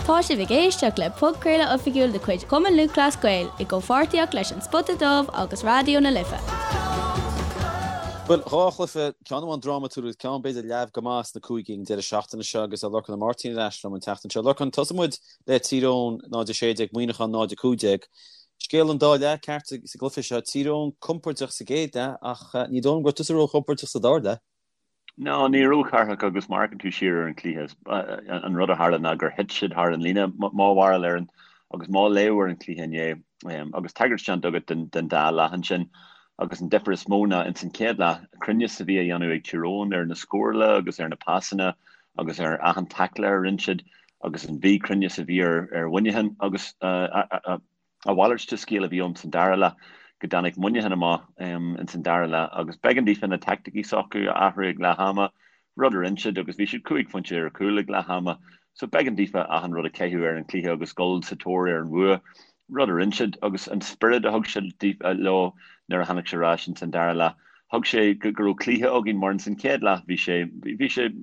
Tá sibh ag éisteacht le podchraoladh oifigiúil de chuid Chumann Lúthchleas Gael i gcomhpháirtíocht leis An Spota Dubh agus Raidió na Life. Bhuel, dhá chluiche, ceann amháin drámatúil agus ceann b'fhéidir leamh go maith sna cúigí ag an deireadh seachtaine seo agus tá Lorcán Ó Máirtín ar ais liom an tseachtain seo. Lorcán, tosóidh muid le Tír Eoghain 0-16, Muineachán 0-15. Scéal an dá leath ceart sa gcluiche seo. Tír Eoghain compordach sa gcéad leath ach ní dóigh liom go raibh tusa róchompordach sa dara leath. No, ní raibh a Chárthach agus má amharcann tú siar ar an chluiche, an rud a tharla ná gur thit siad thar an líne, mo bharúil ar an, agus mo léamh ar an chluiche inné, agus tagairt déanta agat den dá leath ansin, agus an difear is mó ná ins an chéad leath, cruinneas a bhí á dhéanamh ag Tír Eoghain ar na scórála agus ar na pasanna agus ar achan taicle a rinne siad agus an mhíchruinneas a bhí ar Mhuineachán agus a mhalairt de scéal a bhí ann san dara leath, go dtáinig Muineachán amach ins an dara leath agus b'éigean daofa na teaicticí s'acu a athrú ag leath ama, rud a rinne siad agus bhí siad cúig phointe ar chúl ag leath ama. So b'éigean daofa achan rud a chaitheamh ar an chluiche agus dul sa tóir ar an bhua, rud a rinne siad agus an spiorad a thug siad leo nuair a tháinig siad ar ais ins an dara leath. Thug sé go raibh cluiche againn mar ins an chéad leath bhí sé, bhí sé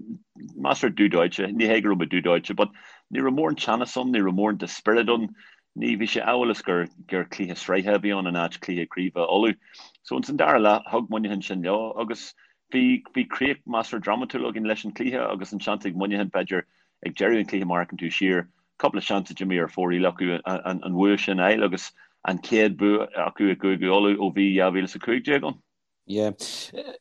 measartha dubh dóite, ní hé go raibh muid dubh dóite but ní raibh mórán teannas ann, ní raibh mórán de spiorad ann, Ní, bhí sé amhail is gur gur cluiche sraithe a bhí ann in áit cluiche craoibhe Uladh. So ins an dara leath, thug Muineachán sin leo agus bhí, bhí críoch measartha drámatúil againn leis an chluiche agus an seans ag Muineachán b'fhéidir ag deireadh an chluiche má amharcann tú siar, cúpla seans a d'imigh ar fóraoil acu an, an bhua sin a fháil agus an chéad bua acu i gCúige Uladh ó bhí 2015 ann. Yeah.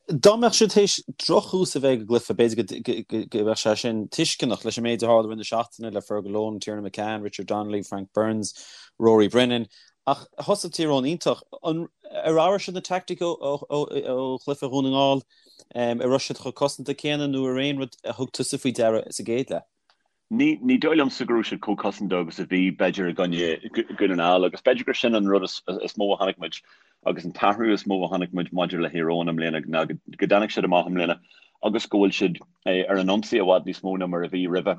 Dá mbeadh siad théis drochthús a bheith ag an gcluiche, b'fhéidir go mbeadh sé sin tuisceanach leis an méid a tharla i rith na seachtaine le Fergal Lohan, Tiernan McCann, Richard Donnelly, Frank Burns, Rory Brennan. Ach thosaigh Tír Eoghain iontach. An ar athraigh siad na teaicticí ó chluiche Dhún na nGall? An raibh siad chomh cosanta céanna nó ar aon rud a thug tusa faoi deara sa gcéad leath? Ní dóigh liomsa go raibh siad chomh cosanta agus a bhí, b'fhéidir, i gcoinne Dhún na nGall agus b'fhéidir gur sin an rud is mó a chonaic muid agus an t-athrú is mó a chonaic muid maidir le Thír Eoghain i mbliana ná go dtáinig siad amach i mbliana agus go bhfuil siad ar an ionsaí i bhfad níos mó ná mar a bhí roimhe.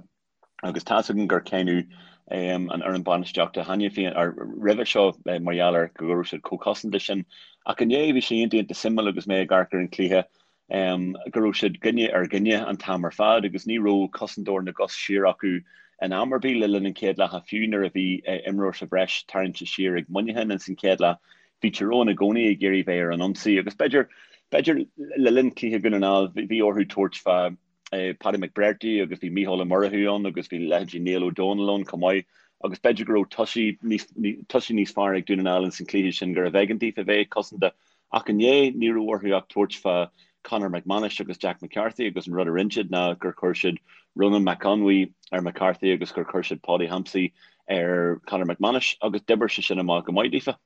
Agus tá's againn gur cáineadh an fhoireann bainistíochta cheana féin roimhe seo mar gheall ar go raibh siad chomh cosanta sin. Ach inné bhí sé iontach iontach suimiúil agus mé ag amharc ar an chluiche go raibh siad duine ar dhuine an t-am ar fad agus ní raibh cosantóir na gcos siar acu in am ar bith le linn an chéad leatha, fiú nuair a bhí imreoir sa bhreis tarraingte siar ag Muineachán ins an chéad leath. Bhí Tír Eoghain i gcónaí ag iarraidh bheith ar an ionsaí agus b'fhéidir, b'fhéidir le linn cluiche Dhún na nGall bhí orthu tabhairt fá Paddy McBrearty agus bhí Mícheál Ó Murchú ann agus bhí leithéidí Niall Ó Dónaill ann chomh maith agus b'fhéidir go raibh tosaí níos, tosaí níos fearr ag Dún na nGall ins an chluiche sin gurbh éigean daofa bheith cosanta. Ach inné, ní raibh orthu ach tabhairt fá Conor McManus agus Jack McCarthy agus an rud a rinne siad ná gur chuir siad Ronan McConway ar McCarthy agus gur chuir siad Paudie Hampsey ar Conor McManus agus d'oibir sé sin amach go maith daofa.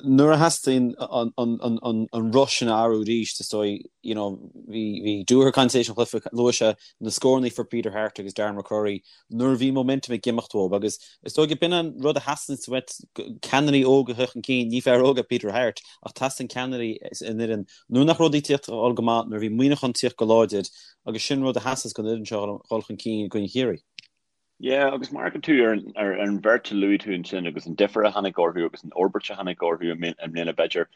Nuair a theastaíonn an roth sin a athrú arís, is dóigh, you know, bhí Dooher ag caint tar éis an chluiche, luaigh sé na scóranna a fuair Peter Harte agus Darren McCurry nuair a bhí momentum ag imeacht dóibh agus is dóigh gurb in an rud a theastaíonn uait, ceannairí óga a theacht chun cinn, ní fear óg é Peter Harte ach teastaíonn ceannairí san fhoireann nuair nach raibh rudaí ag tíocht dul go maith, nuair a bhí Muineachán ag tíocht go láidir agus sin rud a theastas don fhoireann seo dhul chun cinn i gcoinne Chiarraí. Yeah, agus má amharcann tú ar ar an bheirt a luaigh tú ansin agus an difear a tháinig orthu agus an fhorbairt a tháinig orthu i mbliana b'fhéidir,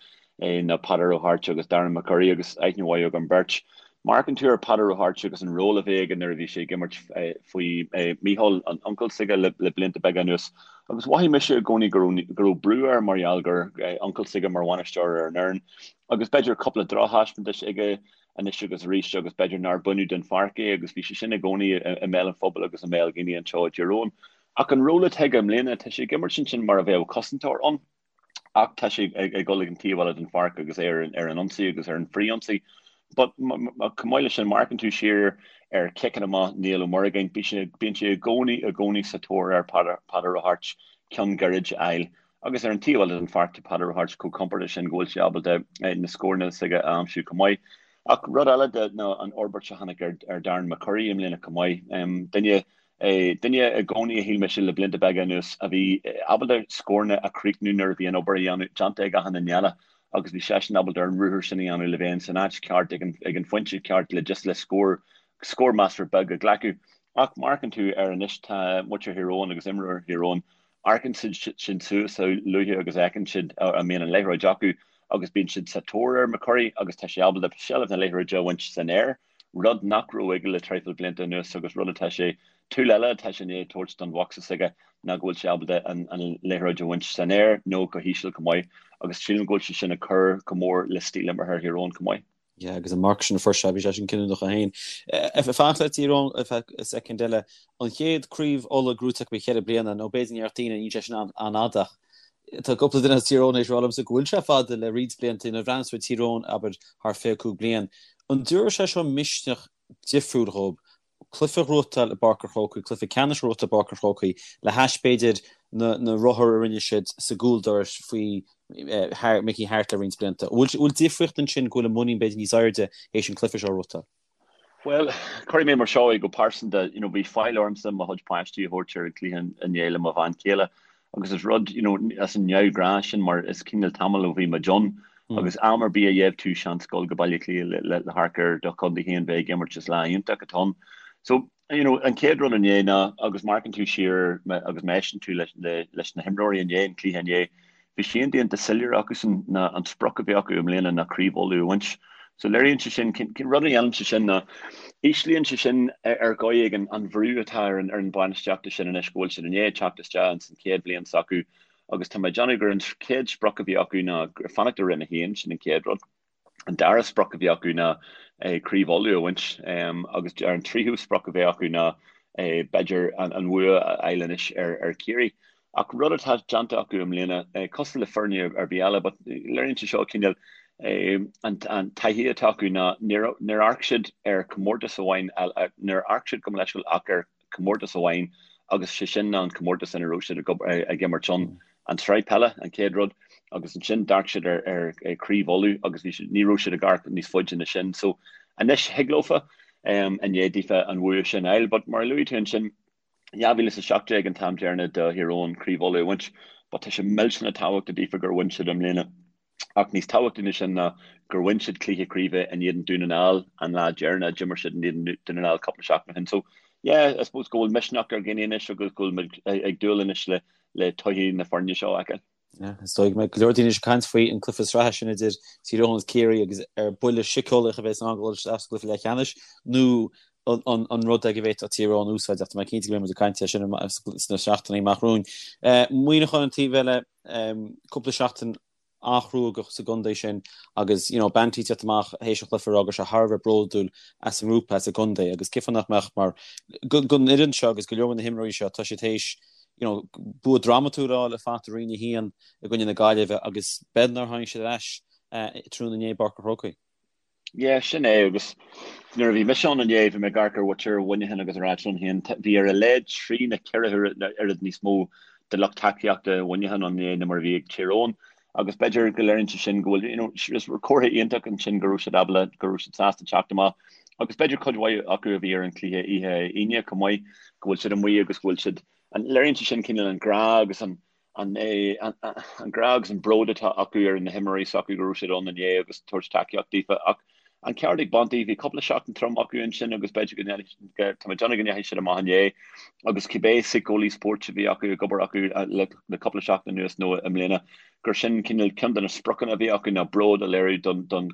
ná Peadar Ó hAirt agus Darren McCurry agus aithne mhaith agam beirt. Má amharcann tú ar Peadar Ó hAirt agus an ról a bhí aige nuair a bhí sé ag imirt faoi Mícheál, an uncail s'aige le blianta beaga anuas agus mhothaigh mise i gcónaí go raibh go raibh brú air mar gheall gur uncail s'aige mar bhainisteoir ar an fhoireann agus b'fhéidir cúpla drochthaispeántas aige anois agus arís agus b'fhéidir nár baineadh den pháirc é agus bhí sé sin i gcónaí i mbéal an phobail agus i mbéal dhaoine anseo i dTír Eoghain. Ach an ról atá aige i mbliana, tá sé ag imirt ansin mar a bheadh cosantóir ann ach tá sé ag dul ag an taobh eile den pháirc agus é ar an ionsaí agus ar an frith-ionsaí. But chomh maith leis sin, má amharcann tú siar ar chiceanna amach Niall Ó Muireagáin, bíonn sé i gcónaí i gcónaí sa tóir ar Peadar Ó hAirt ceann gairid a fháil. Agus ar an taobh eile den pháirc tá Peadar Ó hAirt chomh compordach sin go bhfuil sé ábalta na scóranna s'aige a aimsiú chomh maith. Ach rud eile de ná an fhorbairt a tháinig ar Darren McCurry i mbliana chomh maith. Duine duine i gcónaí a shíl mise le blianta beaga anuas a bhí ábalta scóranna a chríochnú nuair a bhí an obair a dhéanamh déanta ag achan duine eile agus bhí seisean ábalta an ruathar sin a dhéanamh le bheith san áit ceart ag an ag an phointe ceart le just le scór scór measartha beag a ghlacadh. Ach má amharcann tú air anois tá muintir Thír Eoghain agus imreoirí Thír Eoghain Amharcann siad sin suas a luaithe agus a fheiceann siad a mbíonn an liathróid acu agus bíonn siad sa tóir ar McCurry agus tá sé ábalta seilbh na liathróide a bhaint san aer, rud nach raibh aige le traidhfil blianta anuas agus rud atá sé Tool eile atá sé i ndiaidh tabhairt don bhocsa s'aige ná go bhfuil sé ábalta an liathróid a bhaint san aer nó go híseal chomh maith agus sílim go bhfuil sé sin ag cur go mór le stíl imeartha Thír Eoghain chomh maith. Yeah, agus an marc sin a fuair sé, bhí sé sin cinniúnach é féin. Ag fanacht le Tír Eoghain ar feadh soicind eile, an chéad craobh Uladh gnóthaithe acu le ceithre bliana, nó b'fhéidir go ndéarfadh daoine níl sé sin an-fhada ach tá cúpla duine as Tír Eoghain théis rá liomsa go bhfuil sé fada le roinnt blianta, nuair a bhreathnaíonn tú ar Tír Eoghain, abair, thar 25 bliain. An dtabharfaidh sé seo misneach difriúil dhóibh cluiche a ghnóthachtáil i bPáirc an Chrócaigh, cluiche ceannais a ghnóthachtáil i bPáirc an Chrócaigh, le hais, b'fhéidir, na rothair a rinne siad sa gcúldoras faoi Mickey Harte le roinnt blianta. An bhfuil difríocht ansin go bhfuil a muinín b'fhéidir níos airde théis an cluiche seo a ghnóthachtáil? Bhuel, cuirfidh mé mar seo é go pearsanta, you know, bhí faill ormsa mo chuid páistí a thabhairt ar an gcluiche inné le mo bhean chéile Agus is rud, you know, as an neamhghnáth sin mar is cineál tamall ó bhí muid ann agus am ar bith a gheibh tú seans dul go Baile Átha Cliath le, le, le hamharc ar do chontae féin bheith ag imirt is lá iontach atá ann. So, you know, an chéad rud inné ná, agus má amharcann tú siar agus má éisteann tú leis, le, leis na himreoirí inné, an cluiche inné, Bhí sé déanta soiléir acusan ná an sprioc a bhí acu i mbliana ná Craobh Uladh a bhaint. So léiríonn sé sin, rud a dhéanann sé sin ná íslíonn sé sin ar dhóigh éigin an bhrú atá ar an ar an bainistíochta sin anois go bhfuil siad i ndiaidh teacht isteach ins an chéad bhliain s'acu agus tá mé ag déanamh gur an chéad sprioc a bhí acu ná fanacht i Roinn 1, sin an chéad rud. An dara sprioc a bhí acu ná Craobh Uladh a bhaint agus an tríú sprioc a bheith acu ná b'fhéidir an bhua a fháil anois ar Chiarraí. Ach rud atá déanta acu i mbliana, cosúil le foirne ar bith eile, but léiríonn sé seo cineál an taithí atá acu ná níor amharc siad ar chomórtas amháin, níor amharc siad gabh mo leithscéal ach ar comórtas amháin agus sé sin ná an comórtas ina raibh siad ag imirt ann, an tsraith peile, an chéad rud, agus ansin d'amharc siad ar Chraobh Uladh agus bhí siad, ní raibh siad ag amharc níos faide ná sin. So anois thig leofa i ndiaidh daofa an bhua sin a fháil but mar a luaigh tú ansin, 2017 an t-am deireanach do Thír Eoghain Craobh Uladh a bhaint but tá sé millteanach tábhachtach daofa gur bhain siad i mbliana. Ach níos tábhachtaí ná sin ná gur bhain siad cluiche craoibhe in éadan Dún na nGall an lá deireanach a d'imir siad in éadan Dún na nGall cúpla seachtain ó shin. So, yeah, I suppose go bhfuil misneach ar dhaoine anois agus go bhfuil muid ag dúil anois le le todhchaí na foirne seo a fheiceáil. Yeah, is dóigh go mbeidh go leor daoine anois ag caint faoi an cluiche sraithe sin idir Tír Eoghain agus Ciarraí agus ar buille síceolaíoch a bheas ann dul isteach sa gcluiche leathcheannais nó an rud é go bhféadfadh Tír Eoghain úsáid ach tá mé cinnte go mbeidh muid ag caint air sin sna seachtainí amach romhainn. Muineachán an taobh eile, cúpla seachtain an-chruógach sa gcontae sin agus you know Banty ag teacht amach théis an chluiche ag rá go raibh sé thar a bheith bródúil as an ngrúpa, as an gcontae agus cén fáth nach mbeadh mar don fhoireann seo agus go leor de na himreoirí seo tá siad théis you know bua drámatúil a fháil le fanacht i Roinn 1 i gcoinne na Gaillimhe agus b'fhéidir nár tháinig siad ar ais tráthnóna inné i bPáirc an Chrócaigh. Yeah, sin é agus nuair a bhí mise ann inné bhí mé ag amharc ar mhuintir Mhuineacháin agus ag ráit liom féin bhí ar a laghad trí nó ceithre oiread níos mó de lucht tacaíochta Mhuineacháin ann inné ná mar a bhí ag Tír Eoghain agus b'fhéidir go léiríonn sé sin go bhfuil you know is comhartha iontach ansin go raibh siad ábalta go raibh siad sásta teacht amach agus b'fhéidir cuid mhaith acu a bhí ar an chluiche oíche Aoine chomh maith go bhfuil siad amuigh agus go bhfuil siad an léiríonn sé sin cineál an grá agus an an grá agus an bród atá acu ar na himreoirí s'acu go raibh siad ann inné agus tabhairt tacaíocht daofa. Ach an ceart ag Banty, bhí cúpla seachtain trom acu ansin agus b'fhéidir go ndeachaigh, tá mé ag déanamh go ndeachaigh siad amach inné agus cibé síceolaí spóirt a bhí acu ag obair acu le cúpla seachtain anuas nó i mbliana, gur sin cineál ceann de na spriocanna a bhí acu ná bród a léiriú don don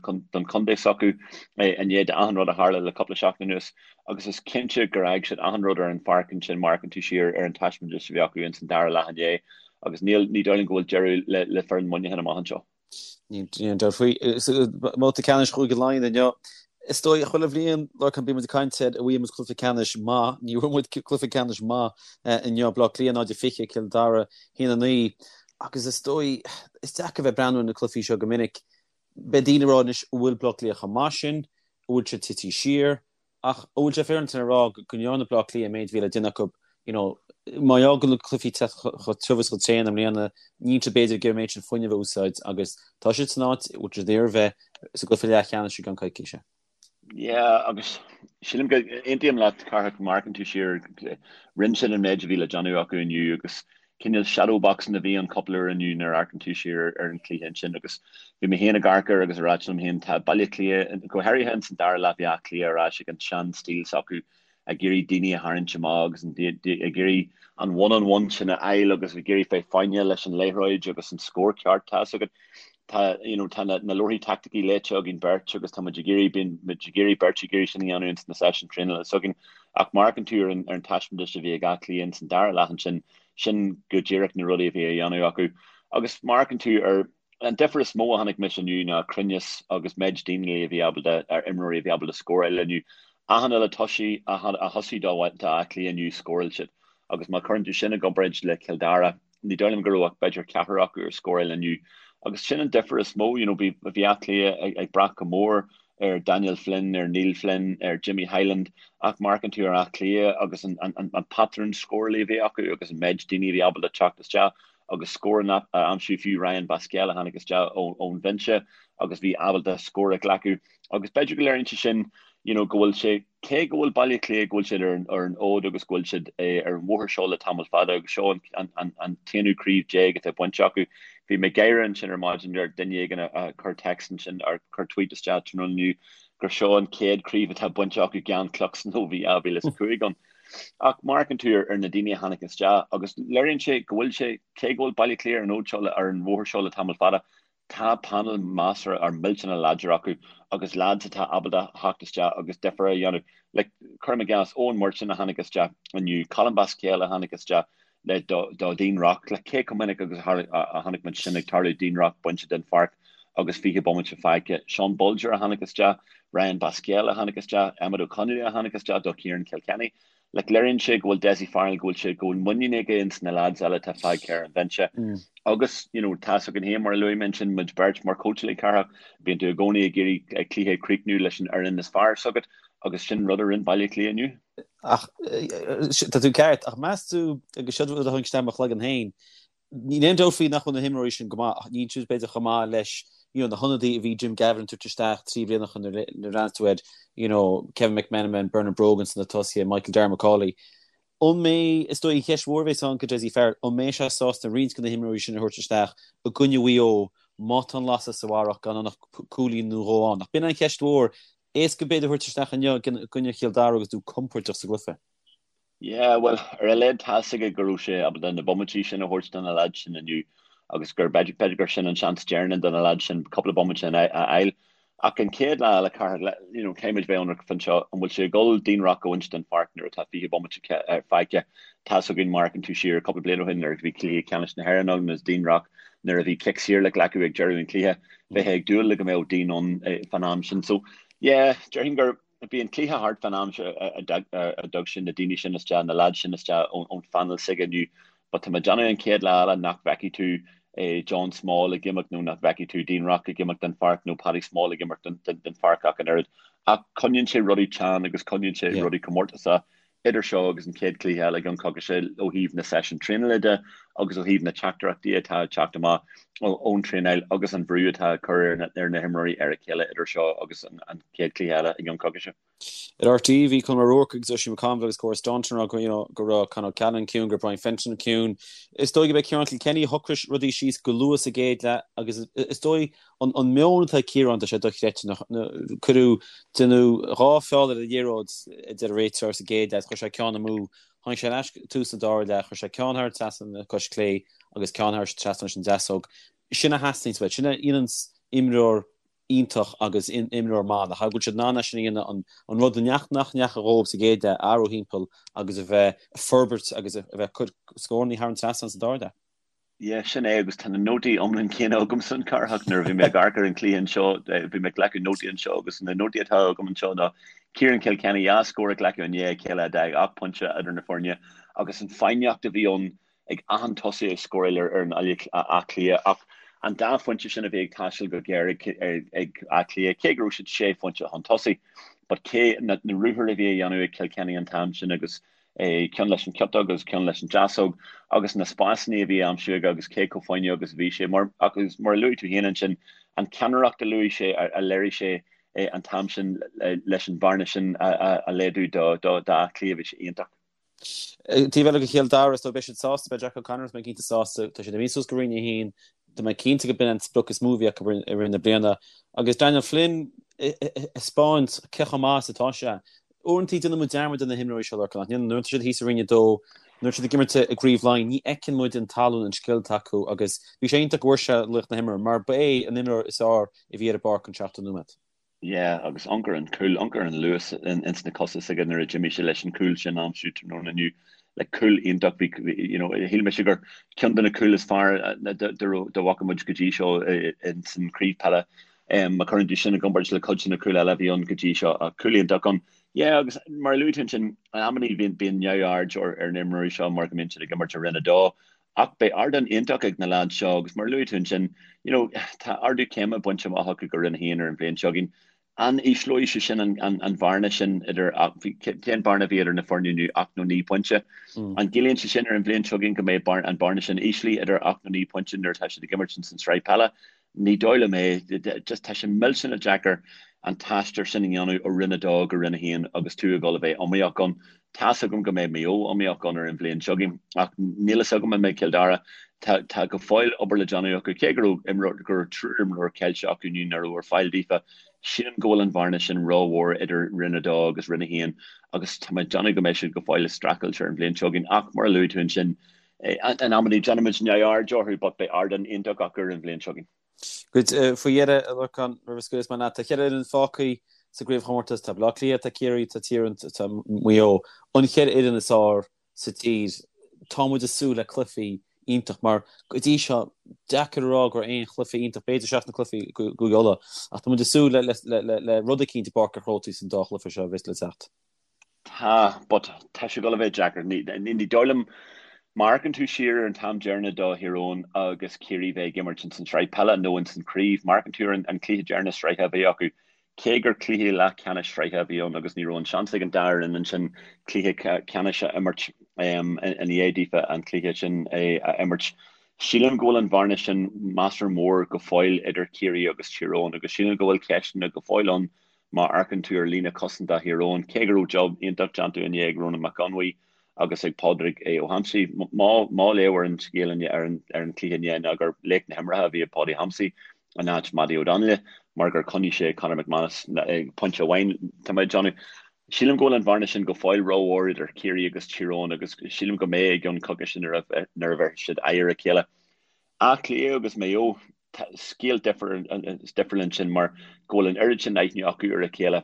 chontae s'acu i ndiaidh d'achan rud a tharla le cúpla seachtain anuas. Agus is cinnte gur fhág siad achan rud ar an pháirc ansin má amharcann tú siar ar an taispeántas a bhí acu ins an dara leath inné agus níl, ní dóigh liom go bhfuil deireadh le, le foireann Mhuineacháin amach anseo. Níl aon dabht faoi. Babhta ceannais Chúige Laighean inniu. Is dóigh, chuile bhliain, Lorcán, bíonn muid ag caint ar an bhfuair muid cluiche ceannais maith. Ní bhfuair muid cluiche ceannais maith inniu. Baile Átha Cliath 0-20, Cill Dara 1-9. Agus is dóigh, is deacair bheith ag breathnú ar na cluichí seo go minic. Beidh daoine ag rá anois, an bhfuil Baile Átha Cliath chomh maith sin? An bhfuil siad tití siar? Ach an bhfuil sé féaráilte a rá go ndearna Baile Átha Cliath an méid a bhí le déanamh acu, you know, mar gheall go bhfuil na cluichí ag teacht chomh tiubh is chomh tréan i mbliana, níl siad b'fhéidir ag iarraidh an méid sin fuinnimh a úsáid agus tá siad san áit a bhfuil siad ag iarraidh a bheith sa gcluiche leathcheannais i gceann coicíse. Yeah, agus sílim go aontaím leat, Cárthach, má amharcann tú siar, rinne siad an méid a bhí le déanamh acu inniu agus cineál shadow boxing a bhí ann cúpla uair inniu nuair a amharcann tú siar ar an chluiche ansin agus bhí mé féin ag amharc air agus ag ráit liom féin tá Baile Átha Cliath, go háirithe ins an dara leath bhí Áth Cliath ar ais ag an sean stíl s'acu ag iarraidh daoine a tharraingt amach agus ag iarraidh an one on one sin a fháil agus ag iarraidh bheith foighneach leis an liathróid agus an scór ceart tá fhios agat tá you know tá na, na leabharthaí taicticí léite againn beirt agus tá muid ag iarraidh bíonn muid ag iarraidh beirt ag iarraidh sin a dhéanamh ins na seisiúin traenála s'againn. Ach má amharcann tú ar an ar an taispeántas a bhí ag Áth Cliath ins an dara leath ansin, sin go díreach na rudaí a bhí á dhéanamh acu. Agus má amharcann tú ar an difear is mó a chonaic mise inniu ná cruinneas agus méid daoine a bhí ábalta, ar imreoirí a bhí ábalta scóráil inniu. Achan uile tosaí a thosaigh do Áth Cliath inniu, scóráil siad. Agus má chuireann tú sin i gcomparáid le Cill Dara, ní dóigh liom go raibh ach b'fhéidir ceathrar acu ar scóráil inniu. Agus sin an difear is mó, you know, bhí bhí Áth Cliath ag ag brath go mór ar Daniel Flynn, ar Neil Flynn, ar Jimmy Hyland, ach má amharcann tú ar Áth Cliath agus an an an patrún scórála a bhí acu agus an méid daoine a bhí ábalta teacht isteach agus scóranna a aimsiú, fiú Ryan Basquel a tháinig isteach ón bhinse agus bhí ábalta scór a ghlacadh. Agus b'fhéidir go léiríonn sé sin, you know, go bhfuil sé Cé go bhfuil Baile Átha Cliath, go bhfuil siad ar an fhód agus go bhfuil siad ar an bhóthar seo le tamall fada agus seo an t-aonú craobh déag atá bainte acu. Bhí mé ag gáire ansin ar maidin ar duine éigin a chuir text ansin ar chuir tweet isteach tráthnóna inniu gur seo an chéad craobh atá bainte acu gan Cluxton ó bhí 2005 ann. Ach má amharcann tú ar na daoine a tháinig isteach agus léiríonn sé go bhfuil sé, cé go bhfuil Baile Átha Cliath ar an fhód seo ar an bhóthar seo le tamall fada, Tá panel measartha or millteanach láidir acu agus lads atá ábalta theacht isteach agus difear a dhéanamh. Like, cuirim i gcás, Eoin Murchan a tháinig isteach inniu, Colm Basquel a tháinig isteach le do do Dean Rock. Like, cé chomh minic agus a chonaic muid sin ag tarlú, Dean Rock bainte den pháirc agus 20 bomaite fágtha. Sean Bolger a tháinig isteach, Ryan Basquel a tháinig isteach, Emmet Ó Conghaile a tháinig isteach do Ciarán Kilkenny. Like, léiríonn sé go bhfuil Dessie Farrell, go bhfuil sé, go bhfuil muinín aige ins na lads eile atá fágtha ar an bhinse. Agus, you know, tá's againn féin, mar a luaigh mé ansin, muid beirt mar chóitseálaí Cárthach, bíonn tú i gcónaí ag iarraidh cluiche a chríochnú leis an fhoireann is fearr s'agat agus sin rud a rinne Baile Átha Cliath inniu. Ach, tá tú ceart, ach meas tú, agus seo rud a tháinig isteach i mo chloigeann féin, Níl aon dabht faoi nach bhfuil na himreoirí sin go maith ach níl siad b'fhéidir chomh maith leis you know na hionadaithe a bhí Jim Gavin ag tabhairt isteach 3 bliana ó shin nuair a bhreathnaíonn tú ar you know Kevin McManamon, Bernard Brogan sna tosaithe, Michael Darragh Macauley. An mbeidh, is dóigh an cheist mhór a bheas ann go Dessie Farrell, an mbeidh sé sásta roinnt de na himreoirí sin a thabhairt isteach i gcoinne Mhaigh Eo má tá an lasadh sa bharrach gan ann ach cúilín nó dhó ann? Ach b'in an cheist mhór, éasca b'fhéidir a thabhairt isteach inniu i gcoinne Chill Dara agus tú compordach sa gcluiche. Yeah, bhuel, ar a laghad tá's aige go raibh sé ábalta na bomaití sin a thabhairt do na lads sin inniu agus gur, b'fhéidir gur sin an seans deireanach do na lads sin cúpla bomaite a fháil. Ach an chéad lá eile, Cárthach, you know, caithfidh muid bheith ionraic fán seo, an bhfuil sé ag dul Dean Rock a bhaint den pháirc nuair atá 20 bomaite fágtha? Tá's againn, má amharcann tú siar cúpla bliain ó shin nuair a bhí cluiche ceannais na hÉireann ann agus Dean Rock nuair a bhí cic saor le glacadh ag deireadh an chluiche, bheifeá ag dúil le go mbeadh Dean ann fán am sin. So, yeah, déarfainn gur, Bhí an cluiche thart fán am a dtug sé na daoine sin isteach, na lads sin isteach ón phainéal s'aige inniu. But tá mé ag déanamh an chéad lá eile nach bhfeicfidh tú John Small ag imeacht nó nach bhfeicfidh tú Dean Rock ag imeacht den pháirc nó Paddy Small ag imeacht den pháirc ach an oiread. Ach coinníonn sé rudaí teann agus coinníonn sé rudaí comórtasach. Idir seo agus an chéad chluiche eile i gceann coicíse ó thaobh na seisiún traenála de agus ó thaobh na teachtaireachtaí atá ag teacht amach ón traenáil agus an bhrú atá á cur ar na himreoirí ar a chéile idir seo agus an chéad chluiche eile i gceann coicíse. Ar RTÉ bhí Colm O'Rourke agus Oisín McConville agus Cora Staunton ag rá you know go raibh Con O'Callaghan ciúin, go raibh Brian Fenton ciúin. Is dóigh gurb é Ciarán Kilkenny a shocraigh rudaí síos go luath sa gcéad leath agus is dóigh An meon atá ag Ciarán, tá sé dochreidte. Cuireadh, déanadh 2 feall ar an liathróid, a deir an réiteoir, sa gcéad leath, chuir sé ceann amú. Tháinig sé ar ais tús an dara leath, chuir sé ceann thar an trasnán le cois clé agus ceann thar trasnán leis an deasóg. Sin a theastaíonns uait. Sin a dhéananns imreoir iontach agus imreoir maith, nach ea? Go bhfuil siad in ann é sin a dhéanamh, an rud nach ndeachaigh dhóibh sa gcéad leath a athrú thimpeall agus a bheith ag forbairt agus a bheith ag cur scórannaí thar an trasnán sa dara leath. Yeah, sin é, agus tá na nótaí iomlán céanna agamsa an Cárthach nuair a bhí mé ag amharc ar an cluiche anseo, bhí mé ag glacadh nótaí anseo agus na nótaí atá agam anseo ná Ciarán Kilkenny dhá scór a ghlacadh i ndiaidh a chéile a d'fhág 8 pointe idir na foirne agus an foighneacht a bhí ann ag achan tosaí ag scóráil ar fhoireann Áth Cliath ach an dá phointe sin a bhí ag taisteal go géar ag Áth Cliath, cé go raibh siad sé phointe chun tosaigh, but cé na ruathair a bhí a dhéanamh ag Kilkenny an t-am sin agus ceann leis an chiotóg agus ceann leis an deasóg, agus na spásanna a bhí á aimsiú aige agus cé chomh foighneach agus a bhí sé. Mar, agus mar a luaigh tú féin ansin, an ceannaireacht a luaigh sé, a léirigh sé an t-am sin leis an bhearna sin a laghdú do d'Áth Cliath, bhí sé iontach. Taobh eile de Chill Dara, is dóigh, beidh siad sásta, beidh Jack O'Connor, tá mé cinnte sásta, tá siad imithe suas go Roinn 1, tá mé cinnte go b'in an sprioc is mó a bhí acu i rith na bliana. Agus Daniel Flynn ag taispeáint cé chomh maith is atá sé. Uaireanta déanann muid dearmad de na himreoirí seo, Lorcán, nach ndéanann? Nuair atá siad thíos i Roinn 2, nuair atá siad ag imirt i gCraobh Laighean, ní fheiceann muid an tallann, an scil atá acu agus bhí sé iontach go bhfuair sé laoch na himeartha mar ba é an imreoir is fearr a bhí ar an bpáirc an 70 nóiméad. Yeah, agus amharc ar an cúl, amharc ar an luas ins na cosa s'aige nuair a d'imigh sé leis an cúl sin a aimsiú tráthnóna inniu. Like cúl iontach, bhí, you know, shíl mise gur ceann de na cúil is fearr dá bhfaca muid go dtí seo ins an craobh peile. Má chuireann tú sin i gcomparáid le cuid de na cúil eile a bhí ann go dtí seo, ach cúl iontach ann. Yeah, agus mar a luaigh tú ansin, in amannaí bíonn, bíonn neamhaird ar ar na imreoirí seo mar go mbíonn siad ag imirt i Roinn 2. Ach beidh ardán iontach ag na leaids seo agus mar a luaigh tú ansin, you know, tá ardú céime bainte amach acu go Roinn 1 ar an bhliain seo chugainn. An ísleoidh sé sin an bhearna sin idir, cén bearna a bhí idir na foirne inniu, ocht nó 9 pointe? An gciallaíonn sé sin ar an bhliain seo chugainn go mbeidh an bearna sin íslithe idir 8 nó 9 pointe nuair atá siad ag imirt ins an tsraith peile? Ní dóigh liom é. Just tá sé millteanach deacair an t-aistear sin a dhéanamh ó Roinn 2 go Roinn 1 agus tú ag dul a bheith iomaíoch ann. Tá's agam go mbeidh Maigh Eo iomaíoch ann ar an bhliain seo chugainn ach níl fhios agam an mbeidh Cill Dara. Tá tá go fóill obair le déanamh acu. Cé go raibh imreoir go raibh triúr imreoir ceilte acu inniu nach raibh ar fáil daofa, sílim go bhfuil an bhearna sin rómhór idir Roinn 2 agus Roinn 1 agus tá mé ag déanamh go mbeidh siad go fóill ag streachailt ar an bhliain seo chugainn ach mar a luaigh tú ansin, In amannaí déanaimid neamhaird orthu but beidh ardán iontach acu ar an bhliain seo chugainn. Good. Faoi dheireadh, a Lorcáin, roimh a scaoilfeas mé leat, tá cheithre fhoireann fágtha sa gcraobhchomórtas, tá Baile Átha Cliath, tá Ciarraí, tá Tír Eoghain, tá Maigh Eo. An cheithre fhoireann is fearr sa tír. Tá muid ag súil le cluichí iontach mar go dtí seo, deacair a rá go raibh aon chluiche iontach, b'fhéidir seachas na cluichí i gCúige Uladh, ach tá muid ag súil le rud eicínt i bPáirc an Chrócaigh san dá chluiche seo a bheas le teacht. Tá, but tá sé ag dul a bheith deacair. Ní dóigh liom, má amharcann tú siar ar an t-am deireanach do Thír Eoghain agus Ciarraí bheith ag imirt ins an tsraith peile nó ins an chraobh, má amharcann tú ar an cluiche deireanach sraithe a bhí acu, cé gur cluiche leathcheannais sraithe a bhí ann agus ní raibh an seans ag an dá fhoireann ansin cluiche ceannais a imirt ina dhiaidh daofa an cluiche sin a imirt, sílim go bhfuil an bhearna sin measartha mór go fóill idir Ciarraí agus Tír Eoghain agus sílim go bhfuil ceisteanna go fóill ann Má amharcann tú ar líne cosanta Thír Eoghain, cé go raibh job iontach déanta inné ag Ronan Mac Conmhaigh agus ag Pádraig Ó hAimsí, mo léamh ar an scéal inné, ar an chluiche inné ná gur laoch na himeartha a bhí i Paudie Thompsey in áit Mattie O'Donnell mar gur choinnigh sé Conor McManus ag pointe amháin. Tá mé ag déanamh. Sílim go bhfuil an bhearna sin go fóill rómhór idir Ciarraí agus Tír Eoghain agus sílim go mbeidh i gceann coicíse nuair a bheidh siad aghaidh ar a chéile. Áth Cliath agus Maigh Eo. Scéal difriúil ansin mar go bhfuil an oiread sin aithne acu ar a chéile.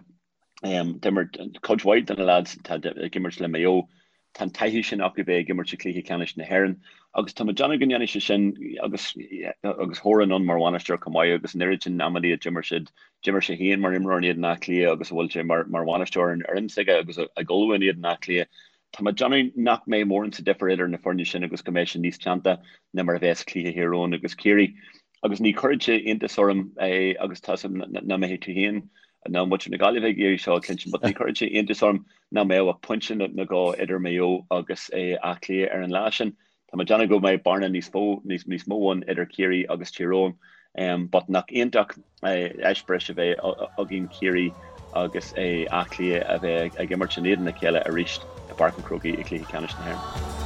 D'imir cuid mhaith de na lads atá ag imirt le Maigh Eo, tá an taithí sin acu bheith ag imirt i gcluiche ceannais na hÉireann agus tá mé ag déanamh go ndéanfaidh sé sin agus agus Horan ann mar bhainisteoir chomh maith agus an oiread sin amannaí a d'imir siad, d'imir sé féin mar imreoir in éadan Átha Cliath agus a bhfuil sé mar bhainisteoir ar an fhoireann s'aige agus ag ullmhú in éadan Átha Cliath. Tá mé ag déanamh nach mbeidh mórán sa difear idir na foirne sin agus go mbeidh sé níos teannta ná mar a bheas cluiche Thír Eoghain agus Ciarraí. Agus ní chuirfeadh sé iontas orm é agus tá 's agam nach mbeidh tú féin ná muintir na Gaillimhe ag iarraidh seo a chluinstin but ní chuirfeadh sé iontas orm nach mbeadh ach pointe nó dhó idir Maigh Eo agus Áth Cliath ar an lá sin. Tá mé ag déanamh go mbeidh bearna níos mó níos mó ann idir Ciarraí agus Tír Eoghain but nach iontach eispéireas a bheith againn Ciarraí agus Áth Cliath a bheith ag imirt in éadan a chéile arís i bPáirc an Chrócaigh i gcluiche ceannais na hÉireann.